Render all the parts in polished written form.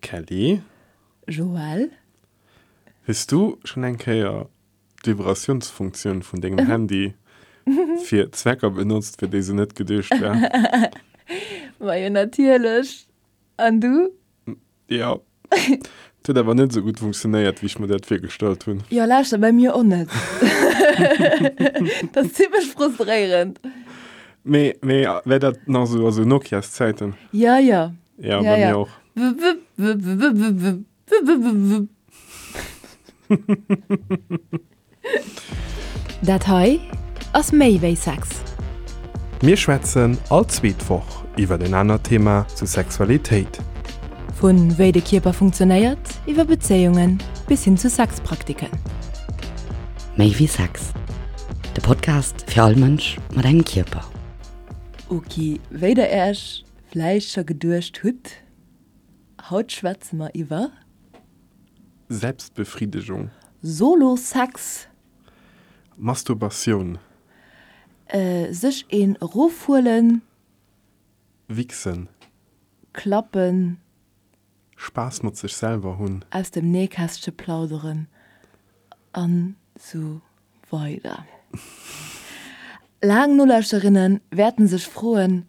Kelly. Joël. Hues du schonn eng Kéier d'Vibratiounsfunktioun vun dengem Handy fir Zwecker benotzt, fir déi se net geduecht war? Majo natierlech. An du? Jo. Et huet awer net esou gutt funktionéiert, wéi ech mer dat virgestallt hunn. Jo, lauschter, bei mir och net. Dat ass zimmlech frustréierend. Mee, mee wär dat nach esou, also Nokias-Zäiten? Jo, jo. Ja, bei mir och. Dat hei ass méi wéi Sex. Mir schwätzen all zweet Woch iwwer en anert Thema zu Sexualitéit. Vu wéi de Kierper funktionéiert, iwwer Bezéiungen bis hin zu Sexpraktiken. Méi wéi Sex, de Podcast fir all Mënsch mat engem Kierper. Ok, wéi der Äech vläicht scho geduecht hutt, haut schwätze mer iwwer. Selbstbefriedigung. Solo-Sex. Masturbatioun. Sech een erofhuelen. Wichsen. Klappen. Spaass mat sech selwer hunn. Aus dem Nähkästche plauderen an sou weider. Laang Nolauschterinnen wäerten sech froen,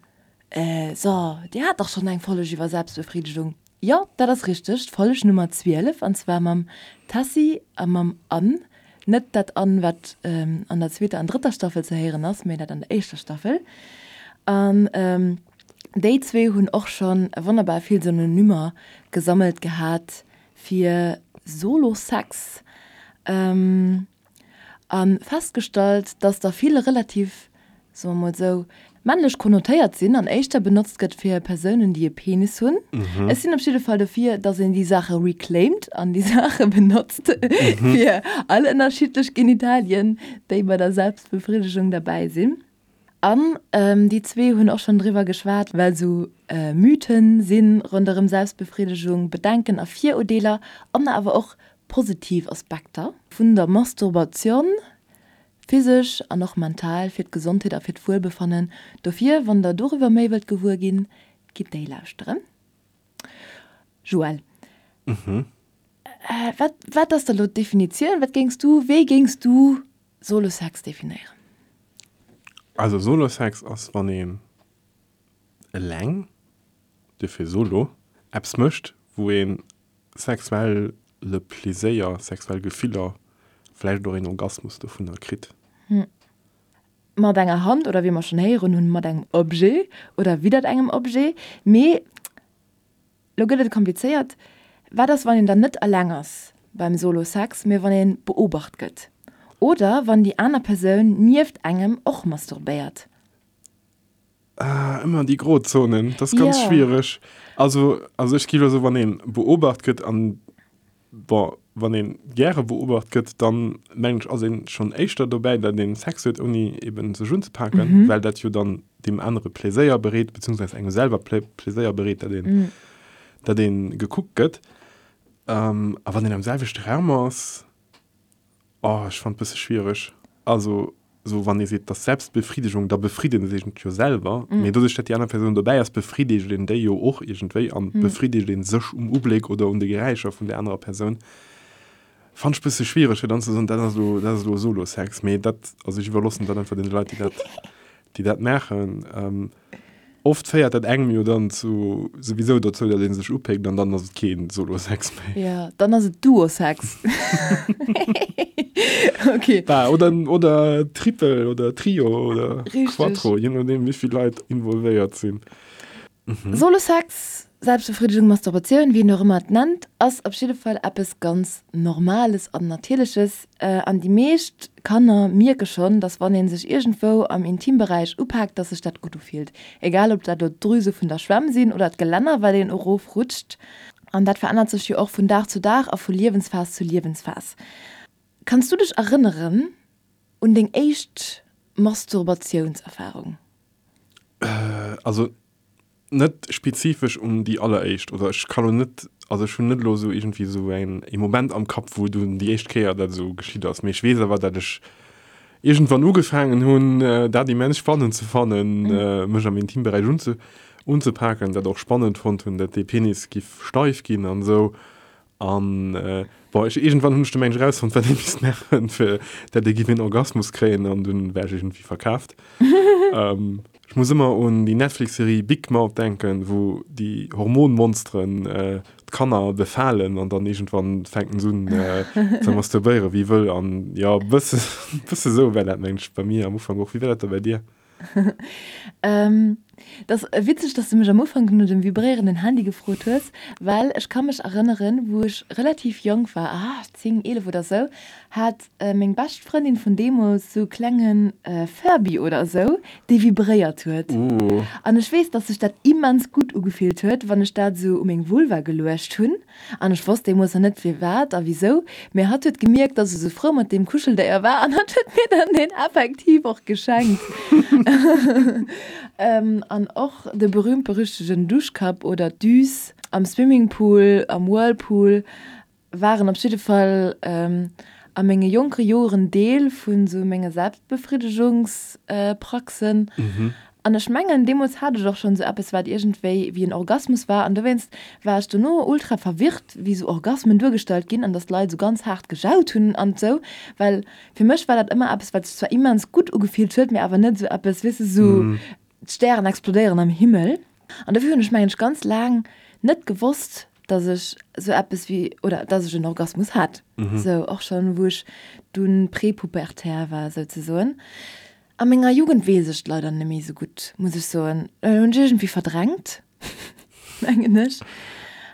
So, dir hat dach schonn eng Folleg iwwer Selbstbefriedigung? Jo, dat ass richteg, d'Folleg Nummer 12, an zwar mam Tessy a mam Anne. Net dat Anne, wat an der zweeter an drëtter Staffel ze héieren ass, mee dat an der éischter Staffel. An déi zwee hunn och schonn wonnerbar vill Synonymer gesammelt gehat fir Solo-Sex. A festgestallt, dass der vill relativ, soe mer mol esou, männlech konnotéiert sinn an éischter benotzt gëtt fir Persounen, déi e Penis hunn. Ech sinn op jidde Fall dofir, dass een déi Saache reclaimed an déi Saache benotzt fir all ënnerschiddlech Genitalien, déi bei der Selbstbefriddegung derbäi sinn. An déi zwee hunn och schonn driwwer geschwat, well esou Mythen si ronderëm Selbstbefriddegung, Bedenken a Virurdeeler an awer och positiv Aspekter vun der Masturbation, physesch an och mental, fir d'Gesondheet a fir d'Wuelbefannen. Dofir, wann der doriwwer méi wëllt gewuer ginn, gitt déi lauschteren. Joël, wat, wat ass da lo d'Definitioun? Wat géings du, wéi géings du Solo-Sex definéieren? Also Solo-Sex ass wann een eleng, duerfir Solo, eppes mécht wou een sexuelle Pleséier, sexuell Gefiller, vläicht och een Orgasmus dovunner kritt. Mat enger Hand oder wéi mer schonn héieren hunn, mat engem Objet oder widdert engem Objet. Mee Lo gëtt et komplizéiert, Wat ass, wann een dann net eleng ass beim Solo-Sex, mee wann ee beobacht gëtt? Oder wann déi aner Persoun nieft engem och masturbéiert? Ah, ëmmer déi Grozonen, dat ass ganz schwiereg. Also, also ech gi lo soen, wann ee beobacht gëtt an Bon, wann een gäre beobacht gëtt, dann mengen ech ass een schonn éischter dobäi, dat een Sex huet ouni eben sech unzepaken, well dat jo dann deem anere Pléséier bereet, beziehungsweise engem selwer Pléséier bereet, dat een, dat een gekuckt gëtt. A wann een am selwechte Raum ass, Oh, ech fannt bësse schwiereg. Also sou wann ee seet, dass Selbstbefriedigung, da befriedegt een sech jo selwer, mee doduerch dat déi aner Persoun dobäi ass, befriedegt een déi jo och iergendwéi an befriedegt een sech um Ubléck oder un de Geräischer vun där anerer Persoun. Fannt ech bësse schwiereg fir dann ze soen, dat ass elo, dat ass elo Solo-Sex, mee dat, also ech iwwerloossen dat einfach deene Leit, déi dat, déi dat maachen. Oft féiert dat engem jo dann zu souwisou dozou, datt ee sech upéckt an dann ass et kee Solo-Sex méi. Jo, dann ass et Duo-Sex. Ok. Bah, oder, oder Triple oder Trio oder Richtig. Quattro, je nodeem wéi vill Leit involvéiert sinn. Solo-Sex, Selbstbefriedigung, Masturbatioun, wéi een och ëmmer et nennt, ass op jidde Fall eppes ganz Normales an Natierleches. An déi meescht Kanner mierke schonn, dass wann ee sech iergendwou am Intimberäich upaakt, dass sech dat gutt ufillt. Egal ob dat elo d'Drüse vun der Schwämm sinn oder d'Gelänner, wat een erofrutscht. An dat verännert sech jo och vun Dag zu Dag a vu Liewensphas zu Liewensphas. Kanns du dech erënneren un deng éischt Masturbatiounserfarung? Also Net spezifesch un déi alleréischt, oder ech ka lo net, also ech hunn net elo esou iergendwéi esou eng ee Moment am Kapp, wou dunn déi éischt Kéier dat esou geschitt ass, mee ech weess awer, dat ech iergendwann ugefaangen hunn, dat immens spannend ze fannen, mech am Intimberäich unze. unzepaken, dat och spannend fonnt hunn, dat dee Penis giff steif ginn an esou. An bon, ech, iergendwann hunn ech du mengen ech erausfonnt, wat ee misst maachen, fir dat ee giff een Orgasmus kréien an dunn war ech iergendwéi verkaaft. Ech muss ëmmer un déi Netflix-Serie Big Mouth denken, wou déi Hormonmonsteren d'Kanner befalen an dann iergendwann fänken se un ze masturbéieren wéi wëll. An jo, e bësse, bësse sou war dat mengen ech bei mir am Ufank och. Wéi war dat da bei dir? Et ass witzeg, dass du mech am Ufank no dem vibréierenden Handy gefrot hues, well ech ka mech erënneren, wou ech relativ jonk war, ah, 10, 11 oder sou, hat meng bescht Frëndin vun deemools sou e klenge Furby oder sou, dee vibréiert huet. An ech weess, dass sech dat immens gutt ugefillt huet, wann ech dat sou u meng Vulva geluecht hunn. An ech wosst deemools nach net firwat a wisou, mee hatt huet gemierkt, dass ech esou frou mat deem Kuscheldéier war an hatt huet mir dann deen effektiv och geschenkt. An och de berühmt-berüchtegen Duschkapp oder d'Düs am Swimmingpool, am Whirlpool waren op jidde Fall a menge jonke Joren Deel vun esou menge Selbstbefriddegungspraxen. An ech mengen, deemools hat ech och schonn esou eppes, wat iergendwéi wéi en Orgasmus war. An dowéinst war ech dono ultra verwirrt, wéi esou Orgasmen duergestallt ginn an dass d'Leit esou ganz haart gejaut hunn an esou. Well fir mech war dat ëmmer eppes, wat sech zwar immens gutt ugefillt huet, mee awer net esou eppes, weess de, esou d'Stären explodéieren am Himmel. An dofir hunn ech, mengen ech, ganz laang net gewosst, dass ech esou eppes wéi, oder dass ech en Orgasmus hat. Esou och schonn, wou ech dunn prepubertär war souzesoen. A menger Jugend weess ech et leider net méi esou gutt, muss ech soen. Hunn ech iergendwéi verdrängt, mengen ech.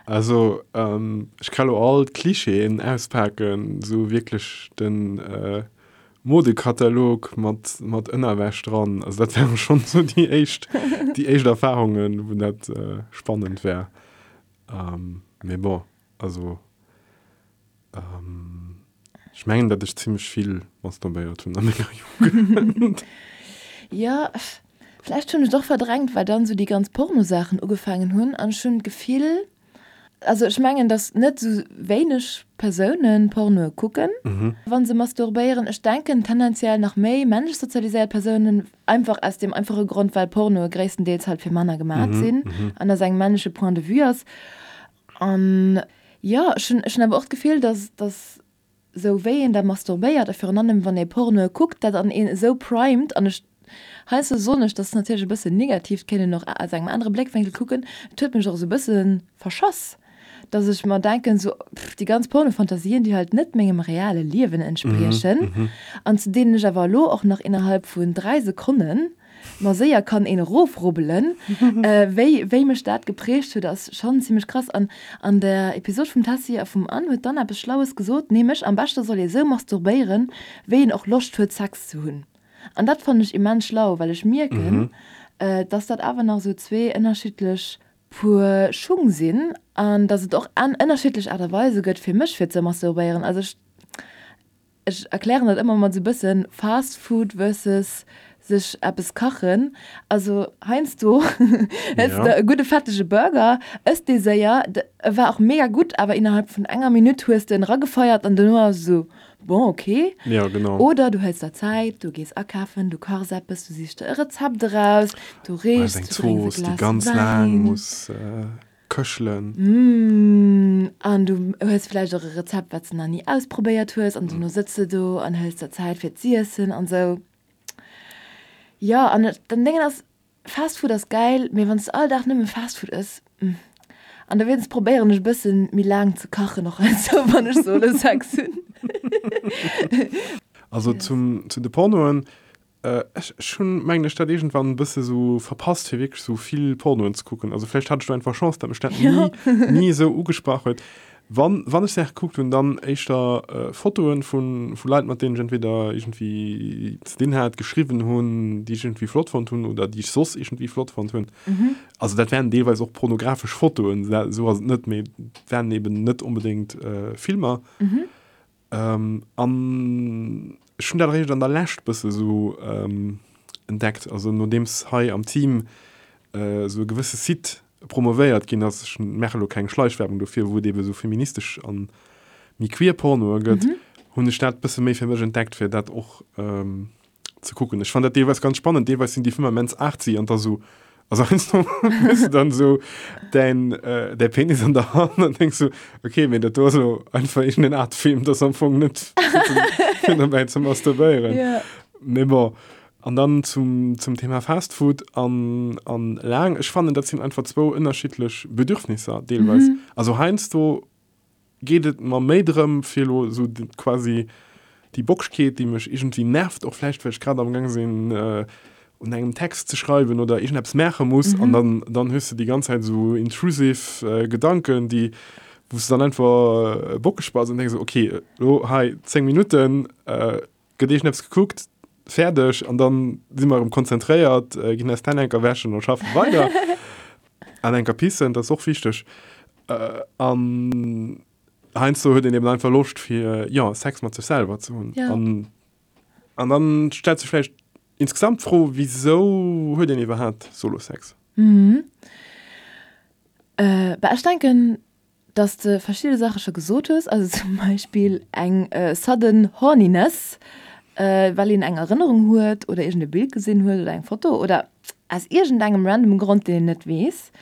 Also ech ka lo all d'Clichéen auspaken, esou wierklech de Modekatalog mat mat Ënnerwäsch dran. Also dat ware schonn esou déi éischt déi éischt Erfarungen, wou dat spannend war. Mee bon, also. Ech mengen, datt ech zimmlech vill masturbéiert hunn a menger Jugend. Jo, vläicht hunn ech et och verdrängt, well dann esou déi ganz Pornosaachen ugefaangen hunn an ech hunn d'Gefill, also ech mengen, datt net esou wéineg Persoune Pornoe kucken, wa se masturbéieren. Ech denken tendenziell nach méi männlech sozialiséiert Persounen, einfach aus deem einfache Grond, well Pornoe gréisstendeels halt fir Männer gemat sinn an aus engem männleche Point de vue ass. An jo, ech hunn, ech hunn awer och d'Gefill, dass, dass sou wéi een da masturbéiert a virun allem wann ee Pornoe kuckt, dat an een esou primed an ech, heiansdo soen ech, dat ass natierlech e bëssen negativ, et kéint een och aus engem anere Bléckwénkel kucken, et huet mech och esou e bësse verschass, dass ech mer denken, sou, pff, déi ganz Pornofantasien, déi halt net mengem reale Liewen entspriechen an zu deenen ech awer elo och nach innerhalb vun 3 Sekonnen Ma séier kann een erofrubbelen. Wéi wéi mech dat geprägt huet ass schonn zimmlech krass. An an der Episod vum Tessy a vum Anne huet d'Anne eppes Schlaues gesot, nämlech am beschte soll ee sou masturbéieren, wéi een och Loscht huet Sex ze hunn. An dat fannen ech immens schlau, well ech mierken, dass dat awer nach sou zwee ënnerschiddlech Puer Schung sinn an dass et och ënnerschiddlech Aart a Weise gëtt fir mech fir ze masturbéieren. Also ech. Ech erklären dat ëmmer mat esou bëssen Fast Food versus sech eppes kachen. Also heiansdo hëls de e gudde fettege Burger, ëss dee séier, e war och mega gutt, awer innerhalb vun enger Minutt hues de en eragefeiert an dono ass esou, bon ok. Ja, genau. Oder du hëls der Zäit, du gees akafen, du kachs eppes, du sichs der e Rezept eraus, du richs, du drénks e Glas Wäin. Köchelen. Mmh, an du hues vläicht och e Rezept, wat s de nach ni ausprobéiert hues, an dono sëtz de do an hëls der Zäit fir z'iessen an sou. Jo, an den Déngen ass, Fast Food ass gäil, mee wann s de all Dag nëmme Fast Food ëss, mmh. An dowéinst probéieren ech e bësse méi laang ze kachen och heiansdo, wann ech solo Sex hunn. Also zum, zu de Pornoen, Ech hunn, mengen ech, dat iergendwann e bësse sou verpasst, fir wierklech sou vill Pornoen ze kucken. Also vläicht hat ech do einfach Chance, datt mech dat ni, ni esou ugesprach huet. Wann, wann ech Saache gekuckt hunn, dann éischter Fotoen vu, vu Leit, mat deenen ech entweder iergendwéi ze dinn hat, geschriwwen hunn, déi ech iergendwéi flott fonnt hunn oder déi ech soss iergendwéi flott fonnt hunn. Also dat waren deelweis och pornografesch Fotoen, esou ass et net, mee et waren eben net onbedéngt Filmer. An ech hunn dat eréischt an der Lescht bësse sou entdeckt, also nodeems hei am Team esou e gewësse Site promovéiert ginn ass, ech maache lo keng Schleichwerbung dofir, wou et ebe sou feministesch a méi queer Pornoe gëtt, hunn ech dat bësse méi fir mech entdeckt, fir dat och ze kucken. Ech fannen dat deelweis ganz spannend, deelweis sinn déi Filmer immens artsy an da sou. Also heiansdo hues du dann esou däin, däi Penis an der Hand an denks sou, okay, mee dat do ass elo einfach iergendeen Art Film, dat ass am Fong net fir dobäi ze masturbéieren. Ja. Mee bon. An dann zum, zum Thema Fast Food an, an laang, ech fannen, dat sinn einfach zwou ënnerschiddlech Bedürfnisser deelweis. Also heiansdo geet et mer méi drëm, fir elo esou quasi déi Bockschkeet, déi mech iergendwéi nervt, och vläicht well ech grad amgaang sinn un engem Text ze schreiwen oder iergendeppes maache muss, an dann, dann hues de déi ganz Zäit esou intrusive Gedanken, déi, wou s de dann einfach bockeg bass an denks esou, okay, elo hei 10 Minutten gëtt iergendeppes gekuckt, fäerdeg, an dann si mer erëm konzentréiert, ginn eis d'Hänn enker wäschen a schaffe weider. An enker pissen, dat ass och wichteg. An heiansdo huet een eben einfach Loscht fir, jo, Sex mat sech selwer ze hunn. Ja. An, an dann stellt sech vläicht insgesamt d'Fro, wisou huet een iwwerhaapt Solo-Sex? Mhm. Bah, ech denken, dass de verschidde Saache scho gesot hues, also zum Beispill eng sudden horniness, well een eng Erënnerung huet oder iergend e Bild gesinn huet oder eng Foto oder aus iergendengem random Grond, deen een net weess.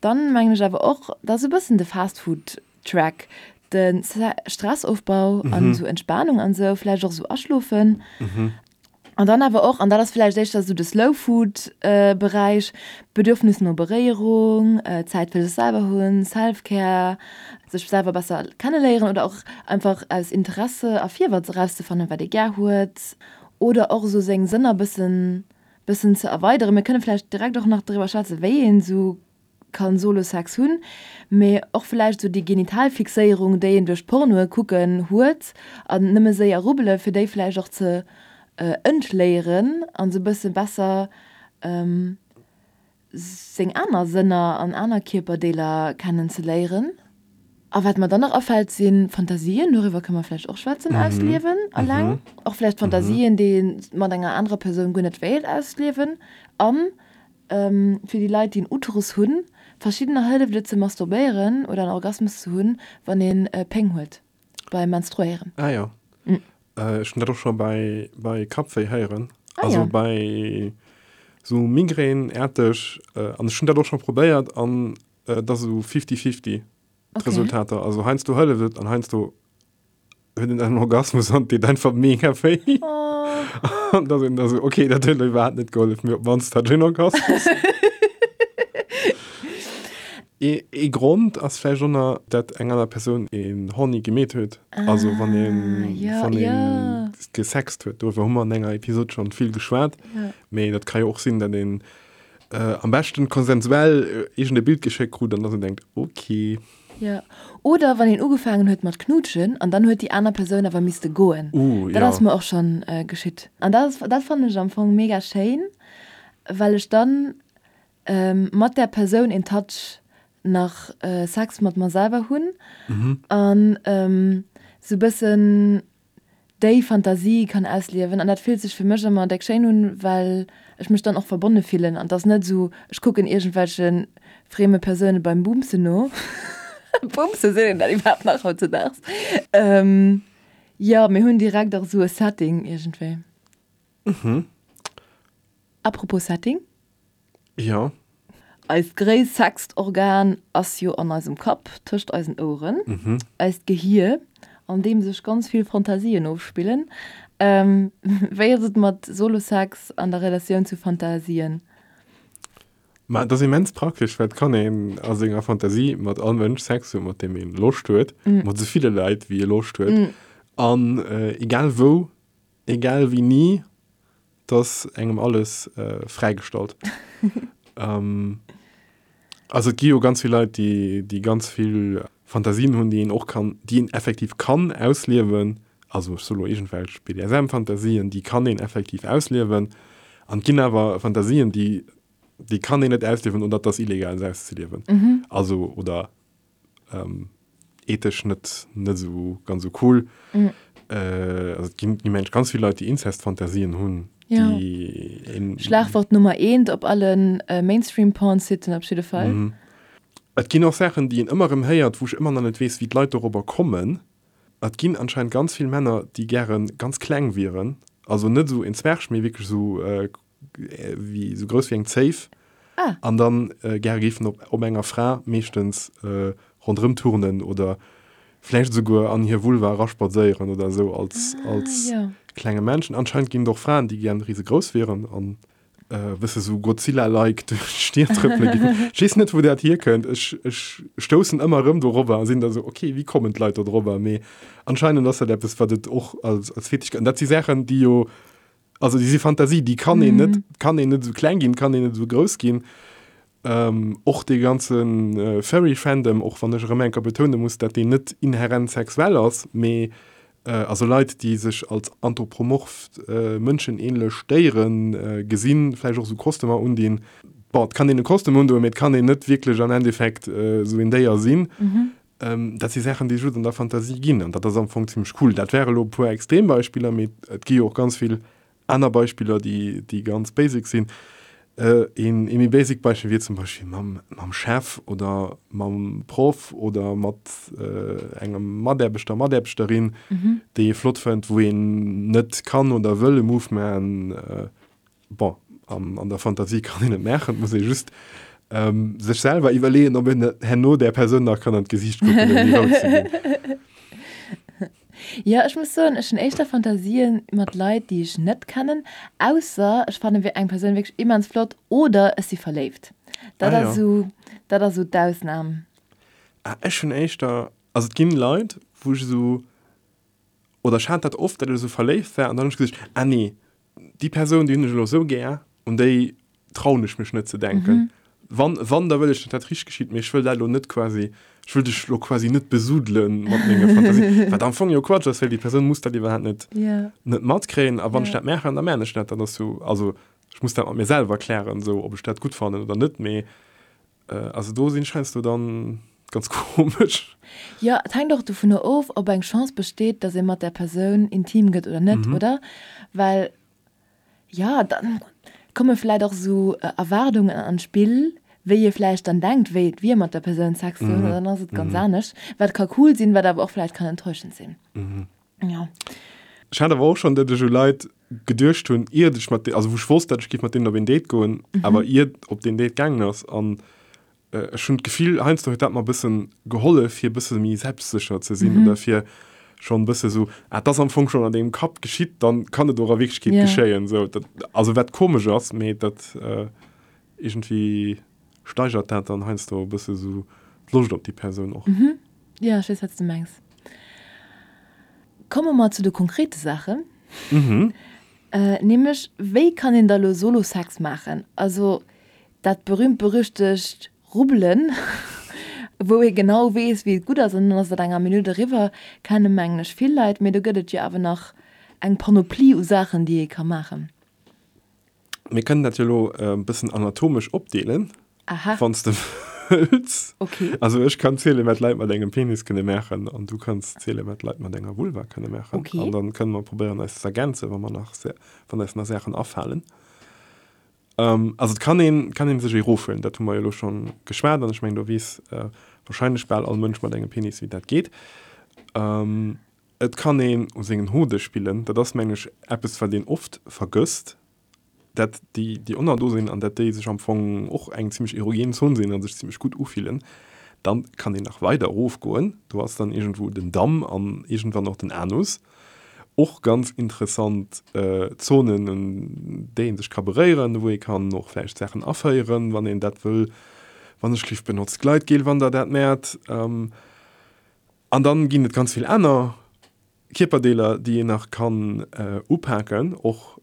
Dann mengen ech awer och, dass e bëssen de Fast Food Track, de Stressofbau an esou Entspanung an esou, vläicht och esou aschlofen. An dann awer och, an dat ass vläicht éischter esou de Slow Food Beräich, Bedürfnis no Beréierung, Zäit fir sech selwer hunn, Self-Care, sech selwer besser kenneléieren oder och einfach aus Interesse a Virwëtz erauszefannen, wat ee gär huet oder och esou seng Sënner bëssen bëssen ze erweideren. Mir kënne vläicht direkt och nach driwwer schwätzen, wéi een esou kann Solo-Sex hunn, mee och vläicht esou déi Genitalfixéierung, déi een duerch Pornoe kucken huet an nëmme séier rubbele fir déi vläicht och ze entléieren an esou bësse besser seng aner Sënner an aner Kierperdeeler kennen ze léieren. A wat mer dann nach afält si Fantasien, doriwwer kënne mer vläicht och schwätzen, ausliewen alleng, och vläicht Fantasien, déi ee mat enger anerer Persoun guer net wéilt ausliewen an Fir déi Leit, déi en Uterus hunn, verschiddener hëlleft et ze masturbéieren oder en Orgasmus ze hunn, wann een Péng huet beim Menstruéieren. Ah jo, ech hunn dat och scho bei bei Kappwéi héieren, also bei sou Migrän-äerteg, an ech hunn dat och scho probéiert an et ass esou fifty-fifty d'Resultater, also heiansdo hëlleft et an heiansdo huet en en Orgasmus an deet einfach mega wéi. Oh. An da sinn da so, okay, dat huet iwwerhaapt net gehollef, mee op d'mannst hat ech en Orgasmus. Ee, ee Grond ass vläicht och nach, dat eng aner Persoun een horny gemeet huet. Also wann een, Ah, ja, wann een ja. gesext huet. Doriwwer hu mer an enger Episod schonn vill geschwat. Ja. Mee dat ka jo och sinn, dat een äh, am beschten konsensuell iergend e Bild geschéckt krut an dass een denkt, okay. Jo, oder wann een ugefaangen huet mat knuutschen an dann huet déi aner Persoun awer misste goen. Uh, Dat jo. ass mer och schonn geschitt. An dat ass, dat fannen ech am Fong mega schéin, well ech dann mat där Persoun in touch nach Sex mat mer selwer hunn an sou bëssen déi Fantasie kann ausliewen an dat fillt sech fir mech ëmmer déck schéin un, well ech mech dann och verbonne fillen an 't ass net esou, ech kucken iergendwelche frieme Persoune beim Bumsen no. Bumsen, seet een dat iwwerhaapt nach hautzedaags? Jo, mir hunn direkt och esou e Setting iergendwéi. Apropos Setting. Jo. Eist gréisst Sexorgan ass jo an eisem Kapp, tëscht eisen Oueren, eist Gehier, an deem sech ganz vill Fantasien ofspillen. Wéi ass et mat Solo-Sex an der Relatioun zu Fantasien? Ma et ass immens praktesch, well et kann een a senger Fantasie mat all Mënsch Sex hunn, mat deem ee Loscht huet, mat esou ville Leit, wéi ee Loscht huet, an egal wou, egal wéini. 't ass engem alles fräigestallt. Also et gi jo ganz vill Leit, déi, déi ganz vill Fantasien hunn, déi een och kann, déi een effektiv kann ausliewen. Also ech soe lo iergendwelch BDSM-Fantasien, déi kann een effektiv ausliewen. An et ginn awer Fantasien, déi, déi kann een net ausliewen oder et ass illegal se auszeliewen. Also oder ethesch net net esou ganz esou cool. Mm. Äh, also et ginn immens ganz vill Leit, déi Inzestfantasien hunn. Ja. Déi een, Schlagwort Nummer eent op allen äh, Mainstream-Porn-Siten op jidde Fall. Mhm. Et ginn och Saachen, déi een ëmmer erëm héiert, wou ech ëmmer nach net weess, wéi d'Leit dorobber kommen. Et ginn anscheinend ganz vill Männer, déi gäre ganz kleng wieren. Also net esou en Zwerg, mee wierklech esou äh, wéi, esou grouss wéi eng Zéif. Ah. An dann gäre géifen op op enger Fra meeschtens ronderëm turnen oder vläicht esouguer an hir Vulva eraspadséieren oder esou als als klenge Männchen. Anscheinend ginn et och Fraen, déi gären risegrouss wieren an e bësse sou Godzilla-like duerch d'Stied trëppele géifen. Ech weess net, wou dat hierkënnt. Ech ech stoussen ëmmer erëm dorobber a sinn da sou, ok, wéi kommen d'Leit do dorobber? Mee anscheinend ass dat eppes, wat et och als als Fetisch gëtt. An dat si Saachen, déi jo Also déi si Fantasie, déi kann een net, kann een net esou kleng ginn, kann een net esou grouss ginn. Och dee ganze Furry-Fandom, och wann ech erëm eng Kéier betoune muss, dat deen net inherent sexuell ass, mee also Leit, déi sech als anthropomorph mënschenähnlech Déiere gesinn, vläicht och esou Kostümer undinn. Bon, et kann een e Kostüm undoen, mee et kann een net wierklech am Endeffekt esou een Déier sinn. Dat si Saachen, déi just an der Fantasie ginn, an dat ass am Fong zimmlech cool. Dat wäre elo e puer extrem Beispiller, mee et gi jo och ganz vill aner Beispiller, déi, déi ganz basic sinn. Een, ee méi basic Beispill wier zum Beispill mam, mam Chef oder mam Proff oder mat engem Mataarbechter, Mataarbechterin, déi ee flott fënnt, wou een net kann oder wëll e Move maachen. Bon, an, an der Fantasie kann een et maachen, et muss ee just ähm, sech selwer iwwerleeën, ob een herno där Persoun nach kann an d'Gesiicht kucken, ouni rout ze ginn. Jo, ech muss soen, ech hunn éischter Fantasien mat Leit, déi ech net kennen, ausser ech fannen eng Persoun wierklech immens flott oder ech si verléift. Dat Ah ass jo. esou, dat ass esou d'Ausnam. Ah, ech hunn éischter, also et ginn Leit, wou ech esou, oder ech hat dat oft, datt ech esou verléift war an dann hunn ech gesot, ah nee, déi Persoun, déi hunn ech elo esou gär, un déi trauen ech mech net ze denken. Wann, wann, da wëll ech, datt dat richteg geschitt, mee ech wëll dat elo net quasi, ech wëll dech elo quasi net besudele mat menge Fantasien, wat am Fong jo Quatsch ass, well déi Persoun muss dat iwwerhaapt net, net matkréien. A wann ech dat maachen, da maachen ech dat, dat ass jo, also ech muss dat mat mir selwer klären, esou, ob ech dat gutt fannen oder net, mee also do sinn ech heiansdo dann ganz komesch. Jo, et hänkt och dovunner of, ob eng Chance besteet, datt ee mat där Persoun intim gëtt oder net, oder? Well, jo, da komme vläicht och esou Erwaardungen an d'Spill, wéi ee vläicht dann denkt, wéi et wier, mat der Persoun Sex ze hunn, an dann ass et ganz anescht, wat ka cool sinn, wat awer och vläicht kann enttäuschend sinn. Jo. Ech hat awer och schonn, datt ech u Leit geduecht hunn, iert ech mat, also wou ech wosst, datt ech géif mat deenen op een Date goen, awer iert op deen Date gaangen ass an Ech hunn d'Gefill, heiansdo huet dat mer e bëssen gehollef, fir e bësse méi selbstsécher ze sinn oder fir schonn e bësse sou, ah, et ass am Fong schonn an dengem Kapp geschitt, dann kann et och a Wierklechkeet geschéien. Sou, dat, also wat komesch ass, mee dat iergendwéi steigert dat dann heiansdo e bësse sou d'Loscht op déi Persoun och. Jo, ech weess, wat s de mengs. Komme mer zu de konkrete Saachen, nämlech, Wéi kann een da lo Solo-Sex maachen? Also Dat berühmt berüchtegt Rubbelen, wou ee genau weess, wéi et gutt ass, an dann ass et an enger Minutt eriwwer, kenne mengen ech vill Leit. Mee do gëtt et jo awer nach eng Panoplie u Saachen, déi ee ka maachen. Mir kënnen dat jo elo e bëssen anatomesch opdeelen, wann s de wëlls. Okay. Also ech kann zielen, wat Leit mat engem Penis kënne maachen, an du kanns zielen, wat Leit mat enger Vulva kënne maachen. Okay. An dann kënne mer probéieren, eis ze ergänzen, wa mer nach, wann eis nach Saachen afalen. Also et kann een, kann een sech ee rofhuelen, dat hu mer jo elo schonn geschwat an ech mengen do weess wahrscheinlech bal all Mënsch mat engem Penis wéi dat geet. Et kann een u sengen Hode spillen, dat ass mengen ech eppes wat een oft vergësst, dat déi déi Onner do sinn an dat déi sech am Fong och eng zimmlech erogen Zon sinn a sech zimmlech gutt ufillen. Dann kann een nach weider erofgoen, do ass dann iergendwou den Damm an iergendwann och den Anus. Och ganz interessant Zonen, un déi ee sech ka beréieren, wou ee kann och vläicht Saachen aféieren, wann een dat wëll. Wann ech lift, benotzt Gleitgel, wann der dat mäert. An dann ginn et ganz vill aner Kierperdeeler, déi een nach kann upaken. Och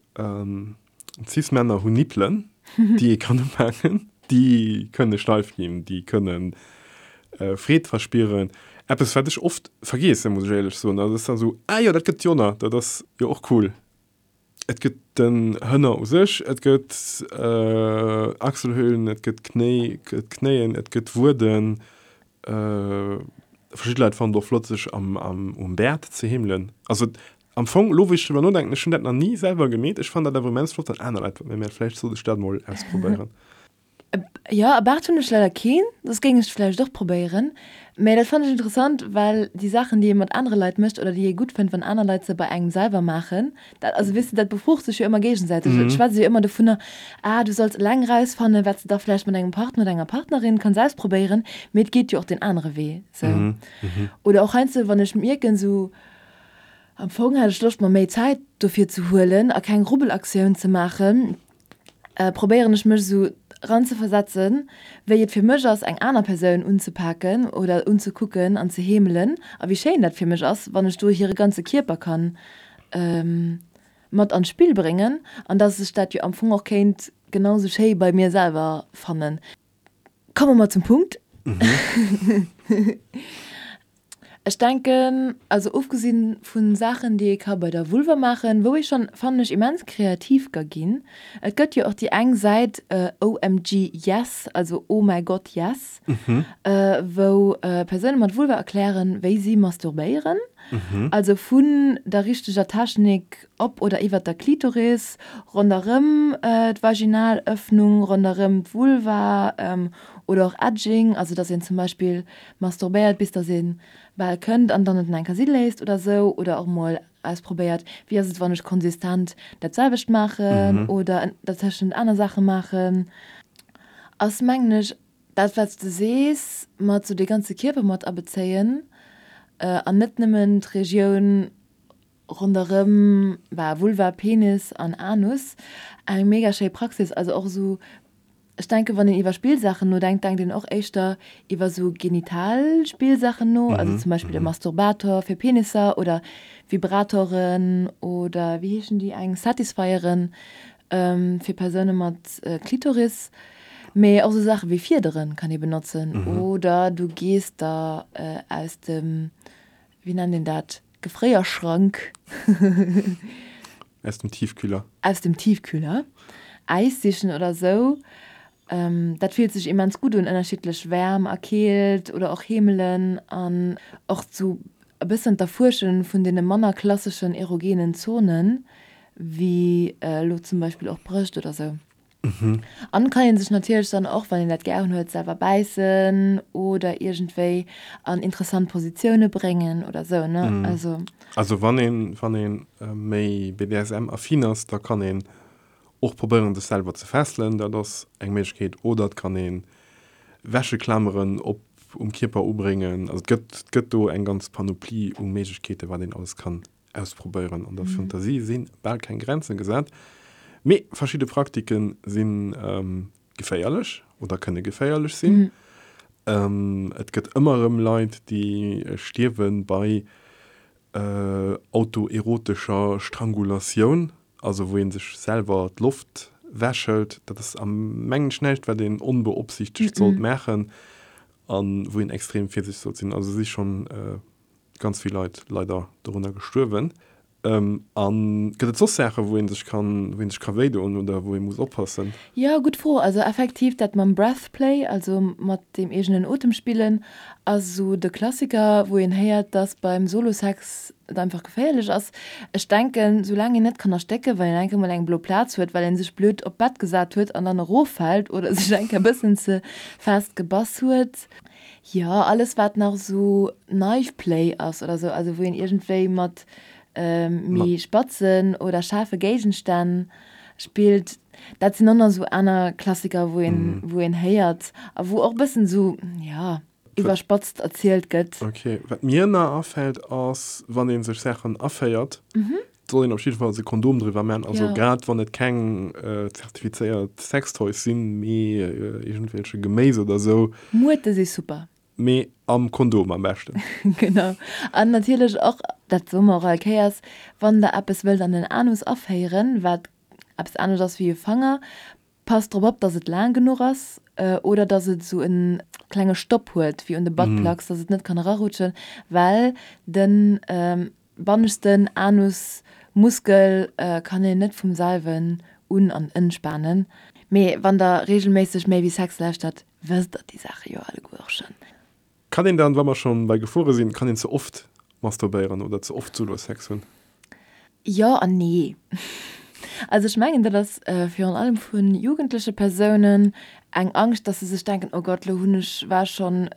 Cis-Männer hunn Nippelen, déi ee kann upaken. Déi kënne steif ginn, déi kënne Freed verspieren. Eppes, wat ech oft vergeessen, muss ech éierlech soen. Dat ass dann esou, Ah jo, dat gëtt jo nach, dat ass jo och cool. Et gëtt den Hënner u sech, et gëtt Achselhöhlen, et gëtt Knéi, d'Knéien, et gëtt Wueden. Verschidde Leit fannen et och flott, sech am, am, um Bäert ze heemelen. Also am Fong, elo wou ech driwwer nodenken, ech hunn dat nach ni selwer gemeet. Ech fannen dat awer immens flott, wann aner Leit dat mat mir maachen. Vläicht sollt ech dat mol ausprobéieren. Jo, e Baart hunn ech leider keen, soss géing ech et vläicht och probéieren. Mä dat fannen ech interessant, well déi Saachen, déi ee mat anere Leit mécht oder déi ee gutt fënnt, wann aner Leit se bei engem selwer maachen, dat, also weess de, dat befrucht sech jo ëmmer géigesäiteg. Et schwätzt jo ëmmer dovunner, ah, du solls eleng erausfannen, wat s de da vläicht mat engem Partner oder enger Partnerin kanns ausprobéieren, mee et geet jo och deen anere Wee sou. Oder och heiansdo, wann ech mierken, sou, am Fong hätt ech Loscht, mer méi Zäit dofir ze huelen a keng Rubbelaktioun ze maachen, probéieren ech mech esou eranzeversetzen, wéi et fir mech ass, eng aner Persoun unzepaken oder unzekucken an ze heemelen a wéi schéin dat fir mech ass, wann ech do hire ganze Kierper kann mat an d'Spill bréngen an dass ech dat jo am Fong och kéint genau sou schéi bei mir selwer fannen. Komme mer zum Punkt. Ech denken, also ofgesinn vu Saachen, déi ee ka bei der Vulva maachen, wou ee schonn, fannen ech, immens kreativ ka ginn. Et gëtt jo och déi eng Säit OMG Yes, also Oh mäi Gott Yes, wou Persoune mat Vulva erklären, wéi si masturbéieren. Also vun der richteger Technik op oder iwwert der Klitoris, ronderëm d'Vaginalëffnung, ronderëm d'Vulva oder och Edging, also dass een zum Beispill masturbéiert bis dass een bal kënnt an dann et en eng Kéier si léisst oder sou oder och mol ausprobéiert wéi ass et wann ech konsistent dat selwecht maachen oder dertëschent aner Saache maachen ass mengen ech dat wat s de sees mat sou de ganze Kierper mat abezéien an net nëmmen d'Regioun ronderëm Vulva, Penis an Anus eng mega schéi Praxis also och sou Ech denken, wann een iwwer Spillsaachen nodenkt, denkt een och éischter iwwer sou genital Spillsaachen no, also zum Beispill e Masturbator fir Penisser oder Vibratoren oder wéi heeschen déi eng, Satisfyeren fir Persoune mat Klitoris. Mee och sou Saache wéi Fiedere kann ee benotzen oder du gees der aus dem, wéi nennt een dat, Gefréierschrank. Aus dem Tiefkühler. Aus dem Tiefkühler. Äis sichen oder sou. Dat fillt sech immens gutt un, ënnerschiddlech Wäerm a Keelt oder och Heemelen an och sou e bëssen d'Erfuersche vun deene manner klasseschen erogenen Zonen, wéi elo zum Beispill och Brëscht oder sou. An kann een sech natierlech dann och, wann een dat gären huet, selwer bäissen oder iergendwéi an interessant Positioune bréngen oder sou, ne? Also. Also wann een, wann een méi BDSM-affin ass, da kann een och probéieren sech selwer ze fesselen, dat ass eng Méiglechkeet, oder et kann een Wäscheklameren op um Kierper ubréngen. Also et gëtt, et gëtt do eng ganz Panoplie u Méiglechkeeten, wat een alles kann ausprobéieren. An der Fantasie si bal keng Grenzen gesat, mee verschidde Praktike si geféierlech oder kënne geféierlech sinn. Et gëtt ëmmer erëm Leit, déi stierwe bei autoerotescher Strangulatioun, also wou ee sech selwer d'Loft wäschelt. Dat ass am mengen ech näischt, wat een onbeopsiichtegt sollt maachen a wou een extrem virsiichteg sollt sinn. Also si schonn Ganz vill Leit leider dorunner gestuerwen. A gëtt et soss Saachen, wou ee sech kann, wou ee sech ka wéidoen oder wou ee muss oppassen? Jo, gutt Fro. Also effektiv dat mam Breath Play, also mat deem eegenen Otem spillen, ass esou de Klassiker, wou een héiert, dass beim Solo-Sex et einfach geféierlech ass. Ech denken, soulaang een net kann erstécken, well een eng Kéier mol eng blo Plaz huet, well een sech blöd op d'Bett gesat huet an dann eroffält oder sech eng Kéier e bëssen ze fest gebass huet, Jo, alles wat nach esou Knife Play ass oder esou, also wou een iergendwéi mat méi spatzen oder schaarfe Géigenstänn spillt, dat sinn och nach esou aner Klassiker, wou een, wou een héiert a wou och e bëssen esou, jo, iwwerspatzt erzielt gëtt. Ok, wat mir nach afält ass, wann ee sech Saachen aféiert, soll een op jiddefalls e Kondom driwwer man, also grad wann et keng zertifizéiert Sextoys sinn, mee iergendwelche Geméis oder sou. Muerte si super. Mee am Kondom am beschten. Genau. An natierlech och, dat soe mer och all Kéiers, wann der eppes wëllt an den Anus aféieren, wat eppes anescht ass wéi e Fanger, Passt drop op, dass et laang genuch ass oder dass et esou e klenge Stopp huet wéi un de Buttplugs, dass et net kann erarutschen, well de banneschten Anusmuskel kann een net vum selwen un an entspanen. Mee wann der regelméisseg Méi wéi Sex lauschtert, wësst der déi Saache jo alleguer och schonn. Kann een dann, wa mer schon bei Gefuere sinn, kann een ze oft masturbéieren oder ze oft Solo-Sex hunn? Jo an nee. Also ech mengen dat ass virun allem vu jugendleche Persounen. eng Angscht, dass se sech denken, oh Gott, lo hunn ech, war schonn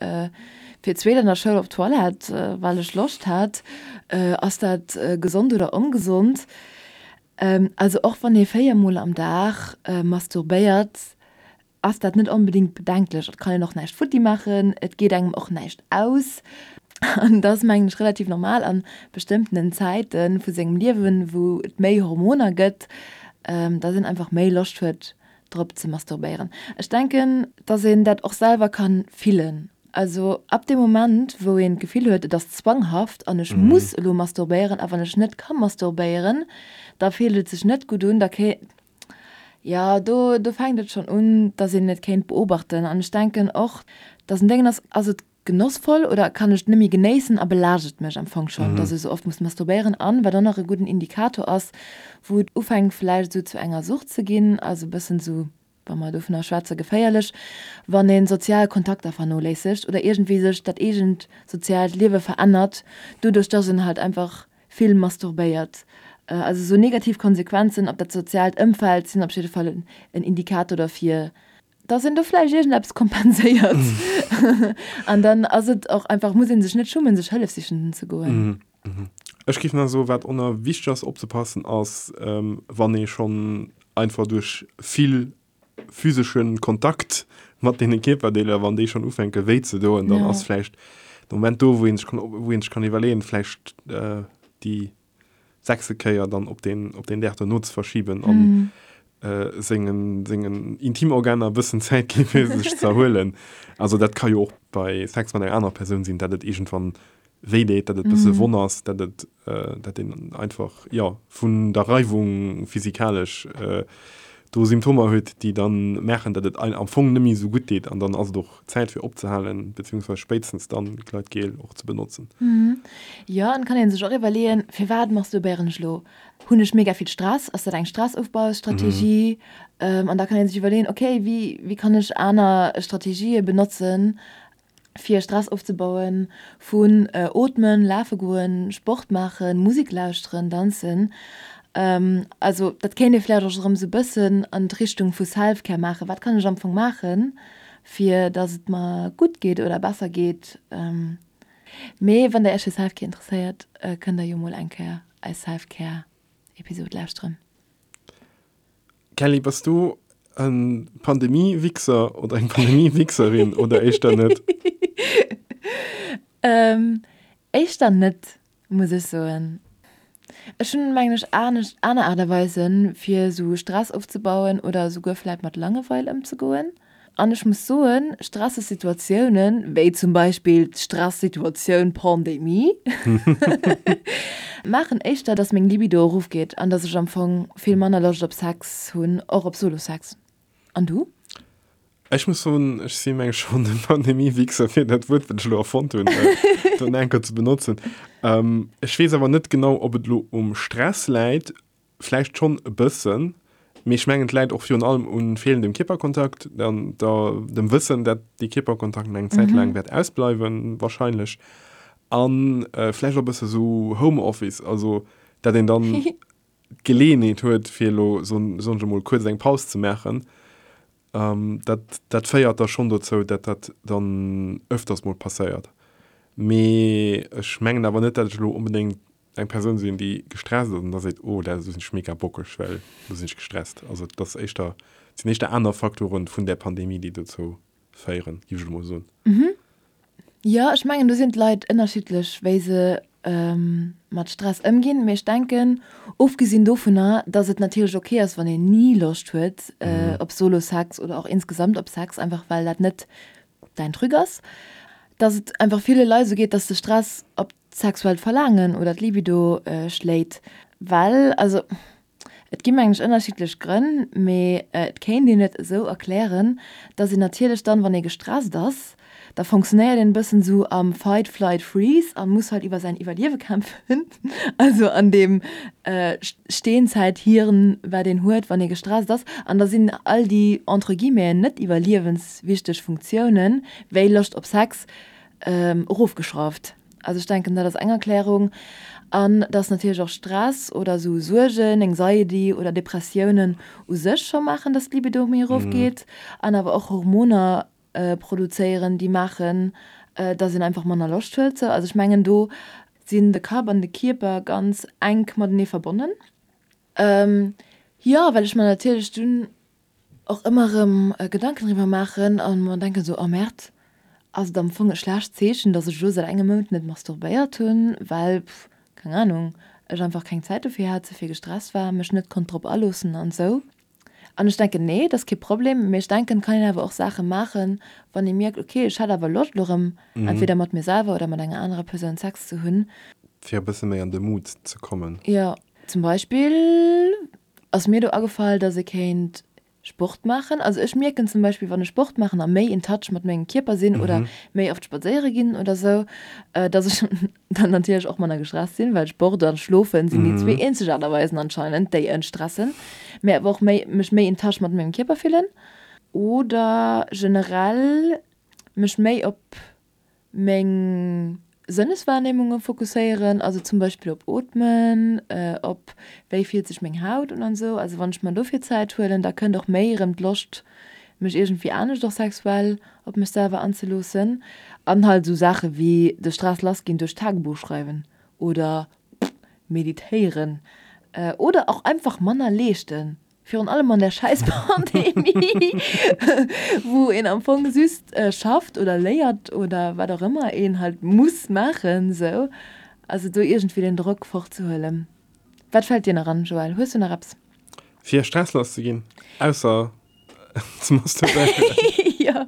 fir d'zweet an der Schoul op d'Toilette, well ech Loscht hat. Ass dat gesond oder ongesond? Also och wann ee 4 mol am Dag masturbéiert, ass dat net onbedéngt bedenklech. Et kann een och näischt futti maachen, et geet engem och näischt aus. An dat ass mengen ech relativ normal an bestëmmtenen Zäite vu sengem Liewen, wou et méi Hormoner gëtt, dass een einfach méi Loscht huet drop ze masturbéieren. Ech denken, dass een dat och selwer kann fillen. Also ab deem Moment wou een d'Gefill huet, et ass zwanghaft an ech muss elo masturbéieren a wann ech net ka masturbéieren, da fillt et sech net gutt un, da ké jo do do fänkt et schonn un, dass een et kéint beobachten. An ech denken och, dass en Déngen ass, ass et genossvoll oder kann ech et net méi genéissen a belaascht et mech am Fong schonn, dass ech esou oft muss masturbéieren an, wat och nach e gudden Indikator ass, wou et ufänkt vläicht esou zu enger Sucht ze ginn, also e bëssen esou, wa mer dovunner schwätze geféierlech, wann ee sozial Kontakter vernoléissegt oder iergendwéi sech dat eegent soziaalt Liewe verännert, doduerch dass een halt einfach vill masturbéiert. Also esou negativ Konsequenzen op dat soziaalt Ëmfeld sinn op jidde Fall en Indikator derfir, dass een do vläicht iergendeppes kompenséiert an dann ass et och einfach, muss ee sech net schummen, sech Hëllef sichen ze goen. Ech géif nach soen, wat och nach wichteg ass opzepassen, ass wann ee schonn einfach duerch vill physesche Kontakt mat deene Kierperdeeler, wann déi schonn ufänke wéi ze doen, dann ass vläicht de Moment do, wou ee sech kann, wou ee sech kann iwwerleeën, vläicht déi sechste Kéier dann op deen, op deen Dag dono ze verschiben an sengen, sengen Intimorganer e bëssen Zäit ginn, fir sech ze erhuelen. Also dat ka jo och bei Sex mat enger anerer Persoun sinn, dat et iergendwann wéi deet, dat et e bësse wonn ass, dat et, dat een einfach, jo, vun der Reiwung physikalesch do Symptomer huet, déi dann maachen, dat et am Fong net méi esou gutt deet an dann ass et och Zäit fir opzehalen, beziehungsweise spéitstens dann Gleitgel och ze benotzen. Jo, an et kann een sech och iwwerleeën, firwat masturbéieren ech elo? Hunn ech mega vill Stress? Ass dat eng Stressofbaustrategie? An da kann een sech iwwerleeën, okay, wéi wéi kann ech aner Strategië benotzen, fir Stress ofzebauen, vun ootmen, lafe goen, Sport maachen, Musek lauschteren, danzen. Also dat kéint ee vläicht och erëm esou e bëssen an d'Richtung vu Self-Care maachen, wat kann ech am Fong maachen, fir dass et mer gutt geet oder besser geet. Mee wann der iech fir Self-Care interesséiert, kënnt der jo mol eng Kéier eis Self-Care-Episod lauschteren. Kelly, bass du e Pandemie-Wichser oder eng Pandemie-Wichserin oder éischter net? Éischter net, muss ech soen. Ech hunn, mengen ech, anescht, aner Aart a Weisen, fir esou Stress ofzebauen oder esouguer vläit mat Langeweil ëmzegoen. An ech muss soen, stresseg Situatiounen, wéi zum Beispill d'Stresssituatioun Pandemie, maachen éischter, dass meng Libido erofgeet an dass ech am Fong vill manner Loscht op Sex hunn, och op Solo-Sex. An du? Ech muss soen, ech si meng schonn e Pandemie-Wichser, fir dat Wuert, wat ech elo erfonnt hunn, do eng Kéier ze benotzen. Ech weess awer net genau, ob et elo um Stress läit, vläicht schonn e bëssen, mee ech mengen, et läit och virun allem u feelendem Kierperkontakt an der, dem Wëssen, dat dee Kierperkontakt nach eng Zäit laang wäert ausbleiwen, wahrscheinlech, a vläicht och e bësse sou Homeoffice, also dat een dann d'Geleeënheet huet, fir elo, soen ech emol, kuerz eng Paus ze maachen. Dat, dat féiert da schonn dozou, dat dat dann ëfters mol passéiert. Mee ech mengen awer net, dat ech elo onbedéngt eng Persoun sinn, déi gestresst ass an da seet, oh, da sinn ech mega bockeg, well elo sinn ech gestresst. Also et ass éischter, et sinn éischter aner Faktoren vun där Pandemie, déi dozou féieren, géif ech elo mol soen. Jo, ech mengen do sinn d'Leit ënnerschiddlech wéi se mat Stress ëmginn. Mee ech denken, ofgesinn dovunner, datt et natierlech ok ass wann een ni Loscht huet op Solo-Sex oder och insgesamt op Sex, einfach well dat net däin Truc ass, datt et einfach ville Leit esou geet, datt de Stress op d'sexuellt Verlaangen oder d'Libido schléit. Well also Et gi mengen ech ënnerschiddlech Grënn, mee et kéint een et esou erklären, dass een natierlech dann, wann ee gestresst ass, da fonctionnéiert een e bëssen esou am Fight, Flight, Freeze a muss halt iwwer säin Iwwerliewe kämpfen, also an deem Steenzäithirn, wat een huet, wann ee gestresst ass. An da sinn all déi entre guillemeten net iwwerliewenswichteg Funktiounen, wéi Loscht op Sex, erofgeschrauft. Also ech denken, dat ass eng Erklärung. An dass natierlech och Stress oder esou Suergen, Anxiety oder Depressiounen u sech scho maachen, dass d'Libido méi erofgeet. An awer och Hormoner produzéieren, déi maachen, dass een einfach manner Loscht huet. Sou, also ech mengen, do sinn de Kapp an de Kierper ganz enk matenee verbonnen. Jo, well ech mer natierlech dunn och ëmmer erëm Gedanken driwwer maachen a mer denken esou, oh Merde, ass et am Fong e schlecht Zeechen, dass ech elo säit engem Mount net masturbéiert hunn, well, pff, keng Ahnung, ech einfach keng Zäit dofir hat, ze vill gestresst war, mech net konnt drop aloossen an esou. An ech denken, nee, dat ass kee Problem, mee ech denken, et kann een awer och Saache maachen, wann ee mierkt, okay, ech hätt awer Loscht elo erëm entweder mat mir selwer oder mat enger anerer Persoun Sex ze hunn. Fir e bësse méi an de Mood ze kommen. Jo, zum Beispill ass mir do agefall, dass ee kéint Sport maachen. Also ech mierken zum Beispill, wann ech Sport maachen a méi in touch mat mengem Kierper sinn oder méi oft spadséiere ginn oder sou, dass ech dann natierlech och manner gestresst sinn, well Sport an Schlofen sinn déi zwee eenzeg Aart a Weisen anscheinend, déi entstressen, mä awer och méi mech méi in touch mat mengem Kierper fillen oder generell mech méi op meng Sënneswahrnehmunge fokusséieren, also zum Beispill op Ootmen, op wéi fillt sech meng Haut un an esou. Also wann ech mer dofir Zäit huelen, da kënnt och méi erëm d'Loscht mech iergendwéi anescht och sexuell op mech selwer anzeloossen. An halt esou Saache wéi de Stress lass ginn duerch Tagebuch schreiwen oder meditéieren oder och einfach manner leeschten. Virun allem an der schäiss Pandemie, wou een am Fong just schafft oder léiert oder wat och ëmmer een halt muss maachen esou. Also do iergendwéi den Drock fortzehuelen. Wat fält dir nach an, Joël? Hues du nach eppes? Fir Stress lass ze ginn, ausser ze masturbéieren? Jo.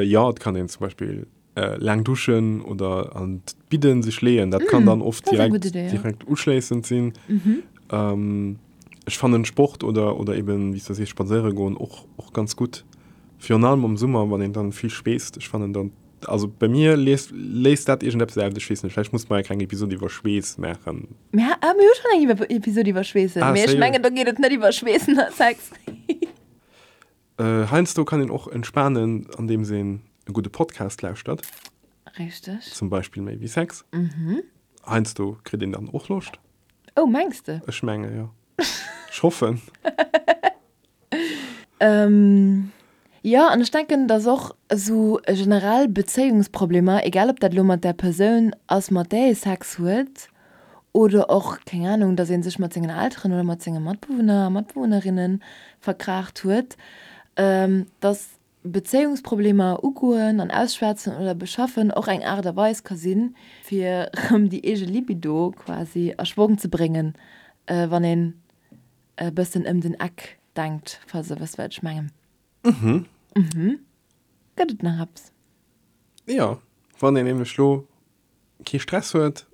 Jo, et kann een zum Beispill Laang duschen oder an d'Bidden sech leeën, dat kann dann oft direkt, direkt uschléissend sinn. Ech fannen Sport oder, oder eben, wéi s de sees, spadséiere goen och, och ganz gutt. Virun allem am Summer, wann een dann vill schweesst. Ech fannen dann, also bei mir léist, léist dat iergendeppes aus, ech weess net, vläicht muss mer eng kleng Episod iwwer Schweess maachen. Mir, ah, mir hu schonn eng Episod iwwer Schweessen, mee ech mengen, do geet et net iwwer Schweessen a Sex. Heiansdo kann een och entspanen, andeems een e gudde Podcast lauschtert. Richteg. Zum Beispill Méi wéi Sex. Heiansdo kritt een dann och Loscht. Oh, mengs de? Ech menge jo. Ech hoffen. Jo, an ech denken, dass och esou generell Bezéiungsproblemer, egal ob dat elo mat där Persoun ass, mat där ee Sex huet, Oder och, keng Ahnung, dass ee sech mat sengen Elteren oder mat senge Matbewunner a Matbewunnerinne verkraacht huet, dass Bezéiungsproblemer ugoen an ausschwätzen oder beschaffen och eng Aart a Weis ka sinn, fir erëm déi eege Libido quasi a Schwong ze bréngen, wann een e bëssen ëm den Eck denkt, falls der wësst, wat ech mengen. Mhm. Gëtt et nach eppes? Jo, wann een nämlech lo kee Stress huet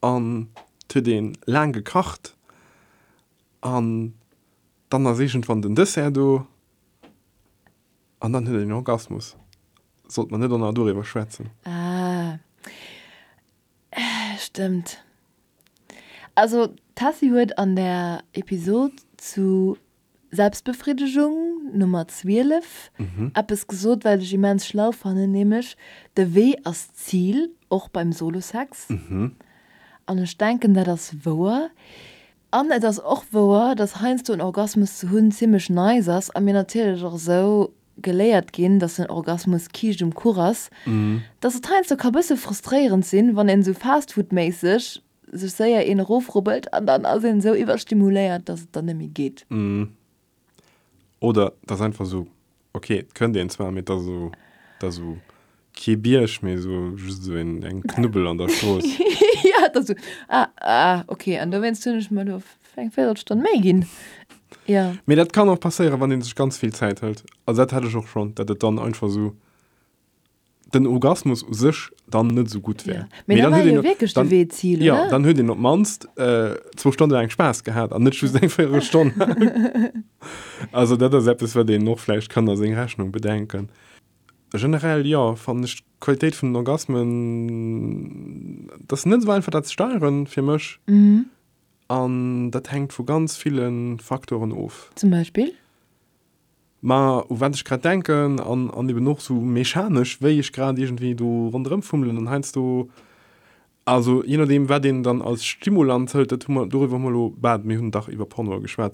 an et huet een laang gekacht an dann ass iergendwann den Dessert do an dann huet een en Orgasmus. Sollt mer net och nach doriwwer schwätzen? Ah, stëmmt. Also d'Tessy huet an der Episod zu Selbstbefriddegung Nummer 12 eppes gesot, wat ech immens schlau fannen, nämlech, De Wee ass d'Zil, och beim Solosex. An ech denken, dat ass wouer. An et ass och wouer, dass heiansdo en Orgasmus ze hunn zimmlech nice ass a mir natierlech och esou geléiert ginn, dass den Orgasmus Kiischt um Kuch ass, dass et heiansdo ka bësse frustréierend sinn, wann een esou fastfoodméisseg sech séier een erofrubbelt an dann ass een esou iwwerstimuléiert, dass et dann net méi geet. Oder et ass einfach esou, ok, et kënnt een zwar, mee et ass esou, et ass esou kee Bierg, mee esou just esou een, eng Knubbel an der Strooss. Jo, et ass esou, ah, ah, ok, an dowéinst hunn ech mer do eng Véierelstonn méi ginn. Jo. Mee dat kann och passéieren, wann ee sech ganz vill Zäit hëlt. Also dat hat ech och schonn, datt et dann einfach esou den Orgasmus u sech dann net esou gutt wär. Ja. Mee dann war jo wierklech de Wee d'Zil, oder? Ja, dann huet een op d'mannst zwou Stonne laang Spaass gehat an net just eng Véierelstonn. Also dat ass eppes, wat een och vläicht kann a seng Rechnung bedenken. Generell, jo, fannen ech d'Qualitéit vun den Orgasmen, et ass net esou einfach dat ze steieren fir mech. An dat hänkt vu ganz ville Faktoren of. Zum Beispill? Ma u wat ech grad denken an, an eben och sou mechanesch, wéi ech grad iergendwéi do ronderëm fummelen an heiansdo, also je nodeem wat een dann als Stimulanz hëlt, dat hu mer, doriwwer hu mer elo, bah, mir hunn dach iwwer Pornoe geschwat,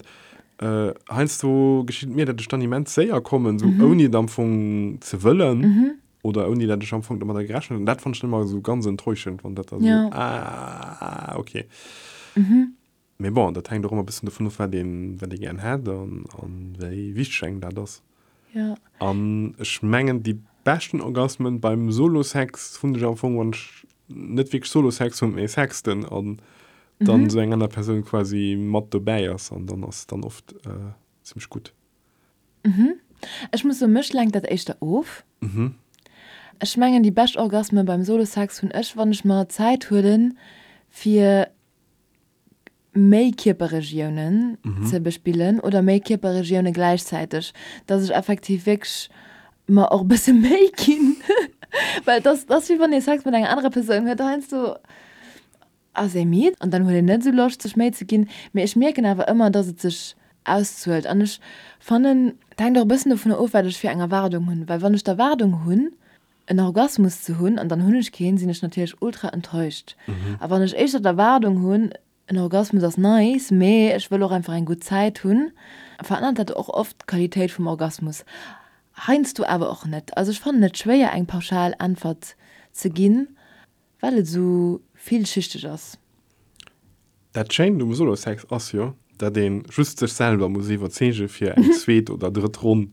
heiansdo geschitt et mir, datt ech dann immens séier kommen, sou ouni et am Fong ze wëllen oder ouni datt ech am Fong domadder gerechent hunn. Dat fannen ech dann ëmmer esou ganz enttäuschend, wann dat da sou, ah, okay. Mee bon, dat hänkt och ëmmer e bëssen dovun of, wat een, wat ee gären hätt an, an wéi wichteg engem dat ass. Ja. An ech mengen, déi beschten Orgasmen beim Solo-Sex hunn ech am Fong, wann ech net wierklech Solo-Sex hunn, mee sexten an dann esou eng aner Persoun quasi mat dobäi ass an dann ass dann oft zimmlech gutt. Ech muss soen, mech lenkt dat éischter of. Ech mengen, déi bescht Orgasmen beim Solo-Sex hunn ech, wann ech mer Zäit huelen, fir méi Kierperregiounen ze bespillen oder méi Kierperregioune gläichzäiteg, dass ech effektiv wierklech mer och e bësse Méi ginn, well et ass, et ass wéi wann ee Sex mat enger anerer Persoun huet, heiansdo ass ee midd an dann huet een net esou Loscht sech Méi ze ginn, mee ech mierken awer ëmmer, dass et sech auszuelt an ech fannen, et hänkt och e bëssen dovunner of, wat ech fir eng Erwaardung hunn, well wann ech d'Erwaardung hunn, en Orgasmus ze hunn an dann hunn ech keen, sinn ech natierlech ultra enttäuscht. A wann ech éischter d'Erwaardung hunn, en Orgasmus ass nice, mee ech wëll och einfach eng gutt Zäit hunn, verännert dat och oft d'Qualitéit vum Orgasmus. Heiansdo awer och net. Also ech fannen et schwéier eng pauschal Äntwert ze ginn. Well et esou villschichteg ass. Dat Schéint um Solo-Sex ass jo, dat een just sech selwer muss iwwerzeegen fir eng zweet oder drëtt Ronn.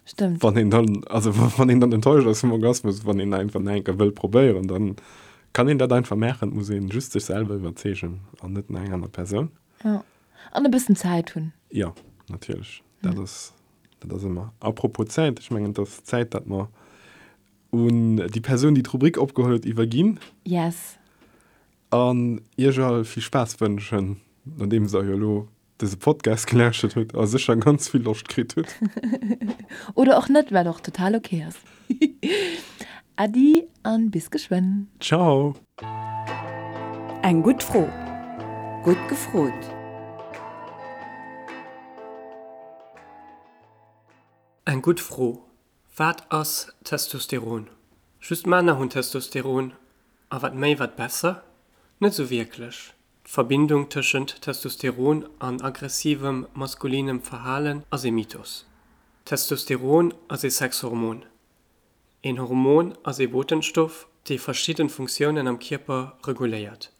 Stëmmt. Wann een dann, also wann een dann enttäuscht ass vum Orgasmus, wann een einfach nach eng Kéier wëll probéieren, dann kann een dat einfach maachen. Et muss een just sech selwer iwwerzeegen an net nach eng aner Persoun. Jo. An e bëssen Zäit hunn. Jo, natierlech. Dat ass, dat ass ëmmer. Apropos Zäit, ech mengen et ass Zäit, dat mer Un déi Persoun, déi d'Rubrik opgeholl huet, iwwerginn. Yes. An iech all vill Spaass wënschen, nodeems der jo elo dëse Podcast gelauschtert hutt a sécher ganz vill Loscht kritt hutt. Oder och net, wat och total ok ass. Äddi an bis geschwënn. Ciao. Eng gutt Fro. Gutt gefrot. Eng gutt Fro. Wat ass Testosteron? Just Männer hunn Testosteron, a wat méi wat besser? Net sou wierklech. D'Verbindung tëschent Testosteron an aggressivem maskulinem Verhalen ass ee Mythos. Testosteron ass ee Sexhormon. Een Hormon ass ee Botenstoff, dee verschidden Funktiounen am Kierper reguléiert.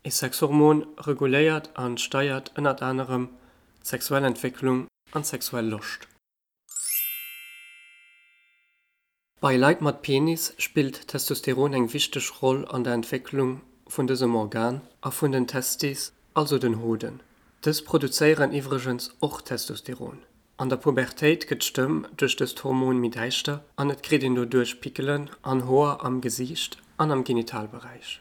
Ee Sexhormon reguléiert an steiert ënnert anerem d'sexuell Entwécklung an d'sexuell Loscht. Bei Leit mat Penis spillt Testosteron eng wichteg Roll an der Entwécklung vun dësem Organ a vun den Testis, also den Hoden. Dës produzéieren iwwregens och Testosteron. An der Pubertéit gëtt d'Stëmm duerch dëst Hormon méi däischter an et kritt een doduerch Pickelen an Hoer am Gesiicht an am Genitalberäich.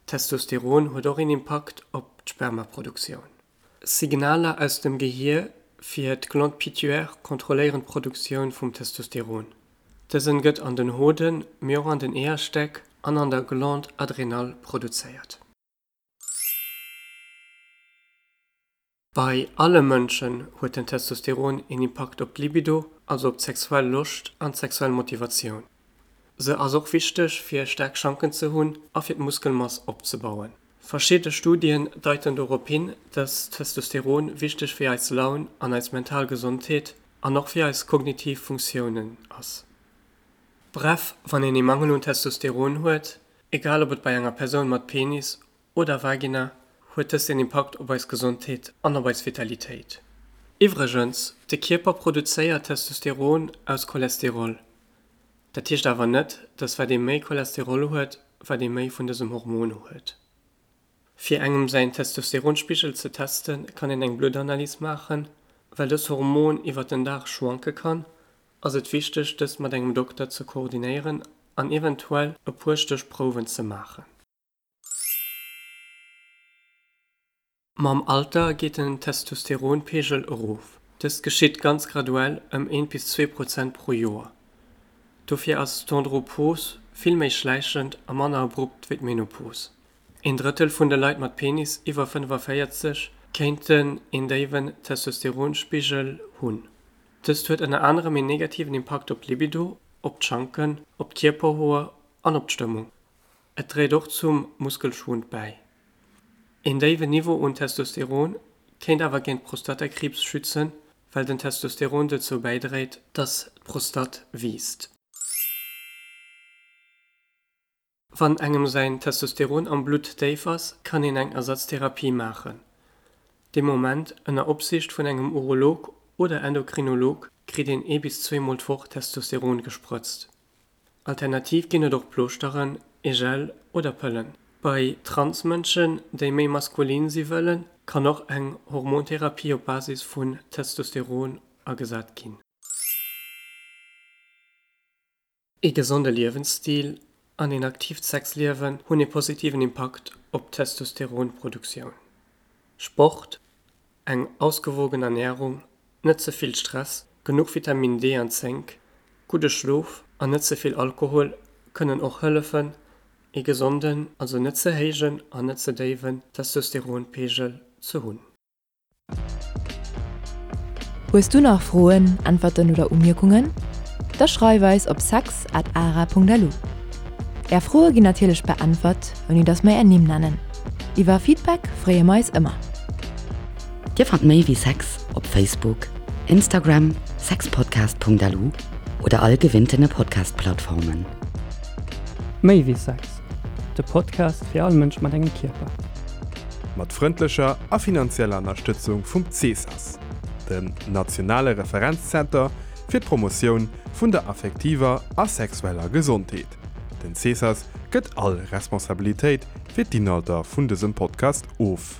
Testosteron huet och een Impakt op d'Spermaproduktioun. Signaler aus dem Gehier fir d'Glande pituaire kontrolléieren d'Produktioun vum Testosteron. Dësen gëtt an den Hoden, mee och an den Eeërstäck an an der Glande adrénale produzéiert. Bei alle Mënschen huet den Testosteron een Impakt op d'Libido, also op d'sexuell Loscht an d'sexuell Motivatioun. Se ass och wichteg fir staark Schanken ze hunn a fir d'Muskelmass opzebauen. Verschidde Studien deiten dorop hin, dass Testosteron wichteg fir eis Laun an eis mental Gesondheet an och fir eis kognitiv Funktiounen ass. Bref, wann een ee Mangel un Testosteron huet, egal ob et bei enger Persoun mat Penis oder Vagina, huet dëst een Impakt op eis Gesondheet an op eis Vitalitéit. Iwwregens, de Kierper produzéiert Testosteron aus Cholesterol. Dat heescht awer net, dass wat ee méi Cholesterol huet, wat ee méi vun dësem Hormon huet. Fir engem säin Testosteronspigel ze testen, kann een eng Bluttanalys maachen. Well dëst Hormon iwwert den Dag schwanke kann, ass et wichteg dëst mat engem Dokter ze koordinéieren an eventuell e puer Stéchprouwen ze maachen. Mam Alter geet den Testosteronpeegel erof. Dëst geschitt ganz graduell ëm eent bis 2% pro Joer. Dofir ass d'Andropos vill méi schläichend a manner abrupt wéi d'Menopos. Een Drëttel vun de Leit mat Penis iwwer 45 kéinten een déiwen Testosteronspigel hunn. Dëst huet ënner anerem een negativen Impakt op d'Libido, op d'Schanken, op d'Kierperhoer an op d'Stëmmung. Et dréit och zum Muskelschwund bäi. Een déiwen Niveau un Testosteron kéint awer géint Prostatakriibs schützen, well den Testosteron dozou bäidréit, dass d'Prostate wiisst. Wann engem säin Testosteron am Blutt déif ass, kann een eng Ersatztherapie maachen. Dee Moment, ënner Opsiicht vun engem Urolog oder Endokrinolog, kritt een ee bis zweemol d'Woch Testosteron gesprëtzt. Alternativ ginn et och Plooschteren, e Gel oder Pëllen. Bei Trans-Mënschen, déi méi maskulin si wëllen, kann och eng Hormontherapie op Basis vun Testosteron agesat ginn. Ee gesonde Liewensstil an een aktiivt Sexliewen hunn ee positiven Impakt op d'Testosteronproduktioun. Sport, eng ausgewogen Ernärung, net ze vill Stress, genuch Vitamin D an Zénk, gudde Schlof an net ze vill Alkohol kënnen och hëllefen, ee gesonden, also net ze héijen an net ze déiwen Testosteronpeegel ze hunn. Hues du nach Froen, Äntwerten oder Umierkungen? Da schreif eis op sex at ara.lu. Är Froe ginn natierlech beäntwert, ouni dass mer är Nimm nennen. Iwwer Feedback freeë mer eis ëmmer. Dir fannt méi wéi Sex op Facebook, Instagram, sexpodcast.lu oder all gewinntene Podcast-Plattformen. Méi wéi Sex, de Podcast fir all Mënsch mat engem Kierper. Mat frëndlecher a finanzieller Ënnerstëtzung vum CESAS, dem nationale Referenzzenter fir d'Promotioun vun der affektiver a sexueller Gesondheet. Den CESAS gëtt all Responsabilitéit fir d'Inhalter vun dësem Podcast of.